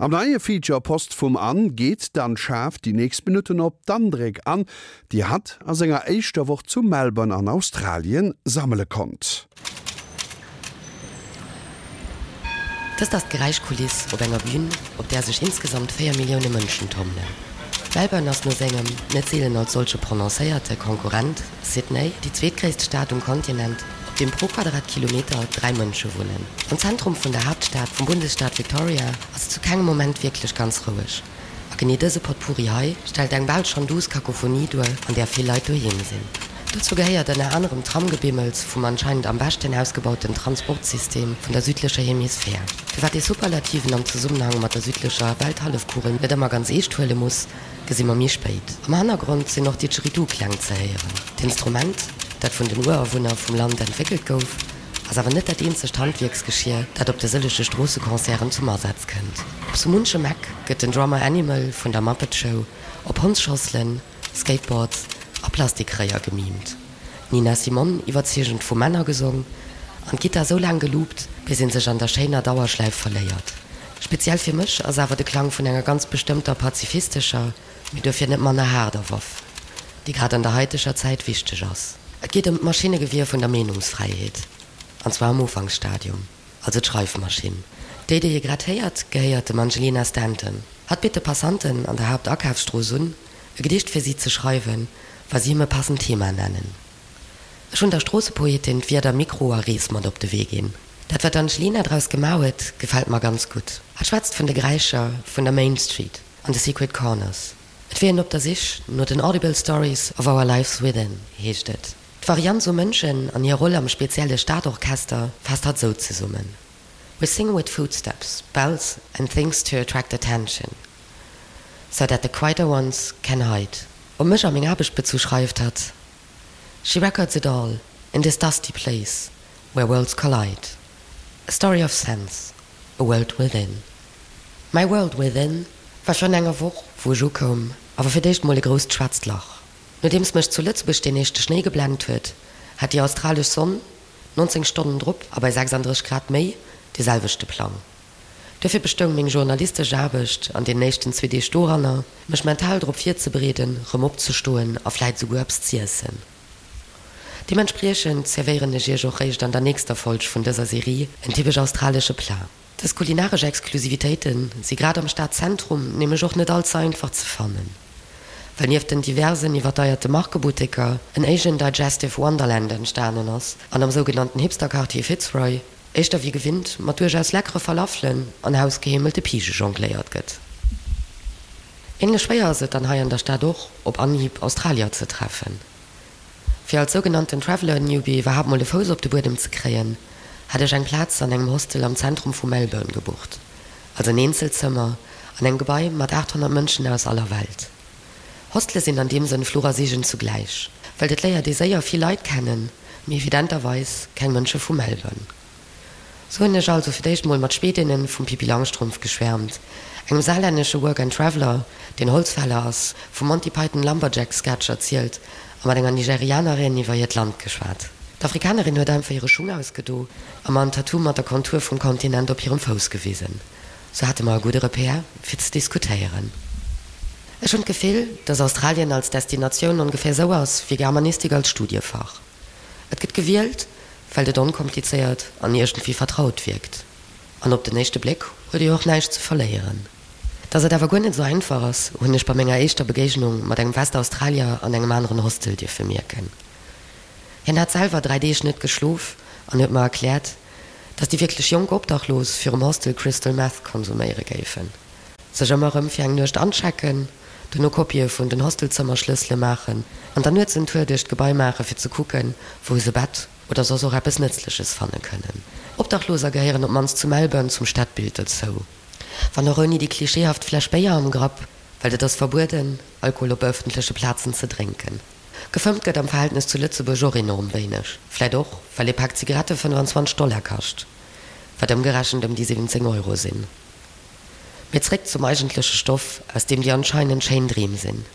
Am neie Feature Post vum Anne geet d'Anne Schaaf déi nächst Minutten op d'Andréck an, déi hatt a senger éischter Woch zu Melbourne an Australien sammele konnt. Dëst ass d'Geräischkuliss op enger Bühn, op där sech insgesamt 4 Millioune Mënschen tommelen. Melbourne ass no sengem, net seelen als solche prononcéierte, Konkurrent Sydney déi zweetgréisst Stad um Kontinent, op deem pro Quadratkilometer 3 Mënsche wunnen. Am Zentrum vun der Haaptstad vum Bundesstaat Victoria ass et zu kengem Moment wierklech ganz roueg. A genee dëse Potpourri hei stellt eng bal schonn duuss Kakophonie duer, an där vill Leit doheem sinn. Dozou gehéiert ënner anerem d'Tramgebimmels vum anscheinend am beschten ausgebauten Transportsystem vun der südlecher Hemisphär. Firwat ee Superlativen am Zesummenhang mat der südlecher Welthallefkugel net ëmmer ganz eescht huele muss, gesi mer méi spéit. Am Hannergrond sinn och Didgeridoo-Kläng ze héieren. D'Instrument, dat vun den Urawunner vum Land entwéckelt gouf, ass awer net dat eenzegt Handwierksgeschier, dat op de sëllege Stroosseconcerten zum Asaz kënnt. Op sou munchem Eck gëtt den Drummer Animal vun der Muppet Show op Hondsschosselen, Skateboards a Plastikréier gemimt, d'Nina Simone iwwerzeegend vu Männer gesong an d'Gittar sou laang geloopt, bis een sech an der schéiner Dauerschläif verléiert. Speziell fir mech ass awer de Klang vun enger ganz bestëmmter pazifistescher, mee duerfir net manner haarder Waff, déi grad an der haiteger Zäit wichteg ass. Et geet ëm d'Maschinnegewier vun der Meenungsfräiheet, an zwar am Ufanksstadium, also d'Schreifmaschinn. Déi, déi ee grad héiert, gehéiert dem Angelina Stanton. Hatt bitt de Passanten an der Haaptakafsstrooss un, e Gedicht fir si ze schreiwen, wa si him e passend Thema nennen. Ech hunn der Stroossepoetin d'Wierder Mikro a Rees mat op de Wee ginn. Dat wat d'Angelina draus gemaach huet, gefält mer ganz gutt. Hatt schwätzt vun de Geräischer vun der Main Street an de Secret Corners. Et wier een op der Sich no den Audible Stories of our Lives Within, heescht et. D'Varianz u Mënschen an hir Roll am spezielle Stadorchester faasst hatt sou zesummen, We sing with footsteps, bells and things to attract attention, so that the quieter ones can hide. Op mech a meng Aarbecht bezu schreift hatt, She records it all in this dusty place where worlds collide, a story of sense, a world within. Mäi World Within war virun enger Woch, wou ech ukoum, awer fir d'éischt mol e grousst schwaarzt Lach. Nodeems mech zu Lëtzebuerg deen éischte Schnéi geblennt huet, hat déi australesch Sonn 19 Stonnen drop a bei 36 Grad méi dee selwechte Plang. Duerfir bestoung meng journalistesch Aarbecht an deenen éischten zwee Deeg doranner, mech mental drop virzebereeden, rëm opzestoen a vläit esouguer eppes z'iessen. Deementspriechend zerwéieren ech iech och réischt an der nächster Folg vun dëser Serie en typesch australesche Plat. Dës kulinaresch Exklusivitéite si grad am Stadzentrum nämlech och net all ze einfach ze fannen, well nieft den diversen iwwerdeierte Markebutteker en Asian Digestive Wonderland entstanen ass an am sougenannten Hipster-Quartier Fitzroy éischter wéi gewinnt mat duerchaus leckere Falafelen an hausgeheemelte Pige jongléiert gëtt. Änlech schwéier ass et dann hei an der Stad och op Anhieb Australier ze treffen. Fir als sougenannten Traveller Newbie iwwerhaapt mol e Fouss op de Buedem ze kréien, hat ech eng Plaz an engem Hostel am Zentrum vu Melbourne gebucht, also en Eenzelzëmmer an engem Gebai mat 800 Mënschen aus aller Welt. Hostele sinn an deem Sënn Fluch a Seegen zugläich, well et léiert ee séier vill Leit kennen, mee evidenterweis keng Mënsche vu Melbourne. Sou hunn ech also fir d'éischt mol mat Schwedinnen vum Pippi Langstrumpf geschwärmt, engem saarlännesche Work and Traveler, deen Holzfäller ass, vum Monty Python Lumberjack Sketch erzielt a mat enger Nigerianerin iwwer hiert Land geschwat. D'Afrikanerin huet einfach hire Schung ausgedo a mer en Tattoo mat der Kontur vum Kontinent op hirem Fouss gewisen. Sou hate mer e gudde Repère fir ze diskutéieren. Ech hunn d'Gefill, dass Australien als Destinatioun ongeféier sou ass wéi Germanistik als Studiefach. Et gëtt gewielt, well et onkomplizéiert an iergendwéi vertraut wierkt. An op den éischte Bléck huet ee jo och näischt ze verléieren. Dass et awer guer net esou einfach ass, hunn ech bei menger éischter Begéignung mat engem Westaustralier an engem aneren Hostel dierfe mierken. Hien hat selwer 3 Deeg net geschlof an huet mer erkläert, dass déi wierklech jonk Obdachlos virum Hostel Crystal Meth konsuméiere géifen. Sech ëmmer erëm fir eng Nuecht anchecken, dono Kopië vun den Hostelzëmmerschlëssele maachen an dann nuets en Tour duerch d'Gebai maache fir ze kucken, wou se e Bett oder soss och eppes Nëtzleches fanne kënnen. Obdachloser gehéieren op d'mannst zu Melbourne zum Stadbild dozou. Wann och ouni déi klischeehaft Fläsch Béier am Grapp, well et ass verbueden, Alkohol op ëffentleche Plazen ze drénken. Gefëmmt gëtt am Verhältnes zu Lëtzebuerg och enorm wéineg, vläit och, well ee Pak Zigarette 25 Dollar kascht, wat ëmgerechent ëm déi 17 Euro sinn. Mee zréck zum eigentleche Stoff, aus deem déi anscheinend schéin Dreem sinn.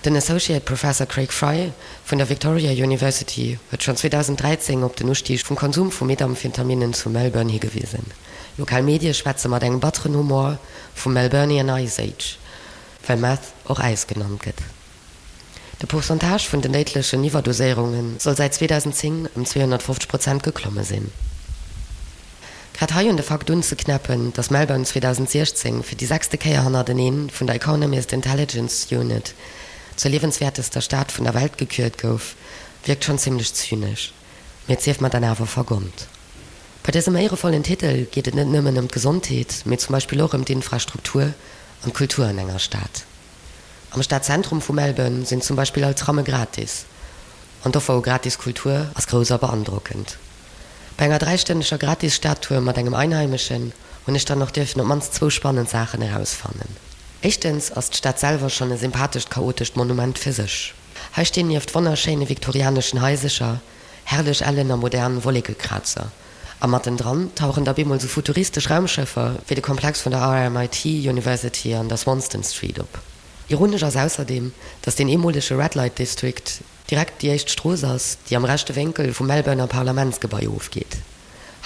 Den Associate Professor Craig Fry vun der Victoria University huet schonn 2013 op den Ustieg vum Konsum vu Methamphetaminen zu Melbourne higewisen. Lokal Medie schwätze mat engem batteren Humor vum Melburnian Ice Age, well Meth och Äis genannt gëtt. De Pourcentage vun den déidlechen Iwwerdoséierunge soll säit 2010 ëm 250 Prozent geklomme sinn. Grad hei un de Fakt unzeknäppen, datt Melbourne 2016 fir déi sechste Kéier hannerteneen vun der Economist Intelligence Unit zur liewenswäertester Stad vun der Welt gekürt gouf, wierkt schonn zimmlech zynesch. Mee et sief mer dann awer vergonnt. Bei dësem éierevollen Titel geet et net nëmmen ëm d'Gesondheet, mee zum Beispill och ëm d'Infrastruktur an d'Kultur an enger Stad. Am Stadzentrum vu Melbourne sinn zum Beispill all Tramme gratis an d'Offer u gratis Kultur ass grouss a beandrockend. Bei enger dräistënneger gratis Stadtour mat engem Einheimeschen hunn ech dann och dierfen op mannst zwou spannend Saachen erausfannen. Éischtens ass d'Stad selwer schonn e sympathescht chaotescht Monument fir sech. Hei stinn nieft wonnerschéine viktorianeschen Haisecher herrlech ellen a modern Wollekekrazer. A mattendran tauchen da bemol sou futuristesch Raumschëffer wéi de Komplex vun der RMIT University an der Swanston Street op. Ironesch ass ausserdeem, datt deen eemolege Red Light District direkt déi éischt Strooss ass, déi am rechte Wénkel vum Melbourner Parlamentsgebai ofgeet.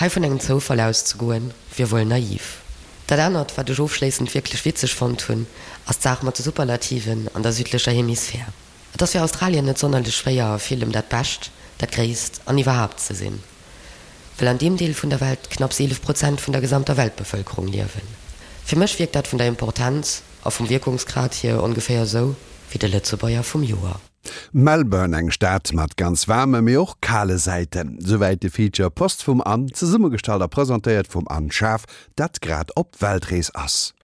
Hei vun engem Zoufall auszegoen, wier wuel naiv. Dat anert, wat ech ofschléissend wierklech witzeg fonnt hunn, ass d'Saach mat de Superlativen an der südlecher Hemisphär. Et ass fir Australien net sonnerlech schwéier, a villem dat Bescht, dat Gréisst an iwwerhaapt ze sinn, well an deem Deel vun der Welt knapps 11 Prozent vun der gesamter Weltbevëlkerung liewen. Fir mech wierkt dat vun der Importenz a vum Wierkungsgrad hier ongeféier esou wéi de Lëtzebuerger vum Joer. Melbourne, eng Stad mat ganz waarme mee och kale Säiten. Souwäit de Feature Post vum Anne, zesummegestallt a presentéiert vum Anne Schaaf, dat grad op Weltrees ass.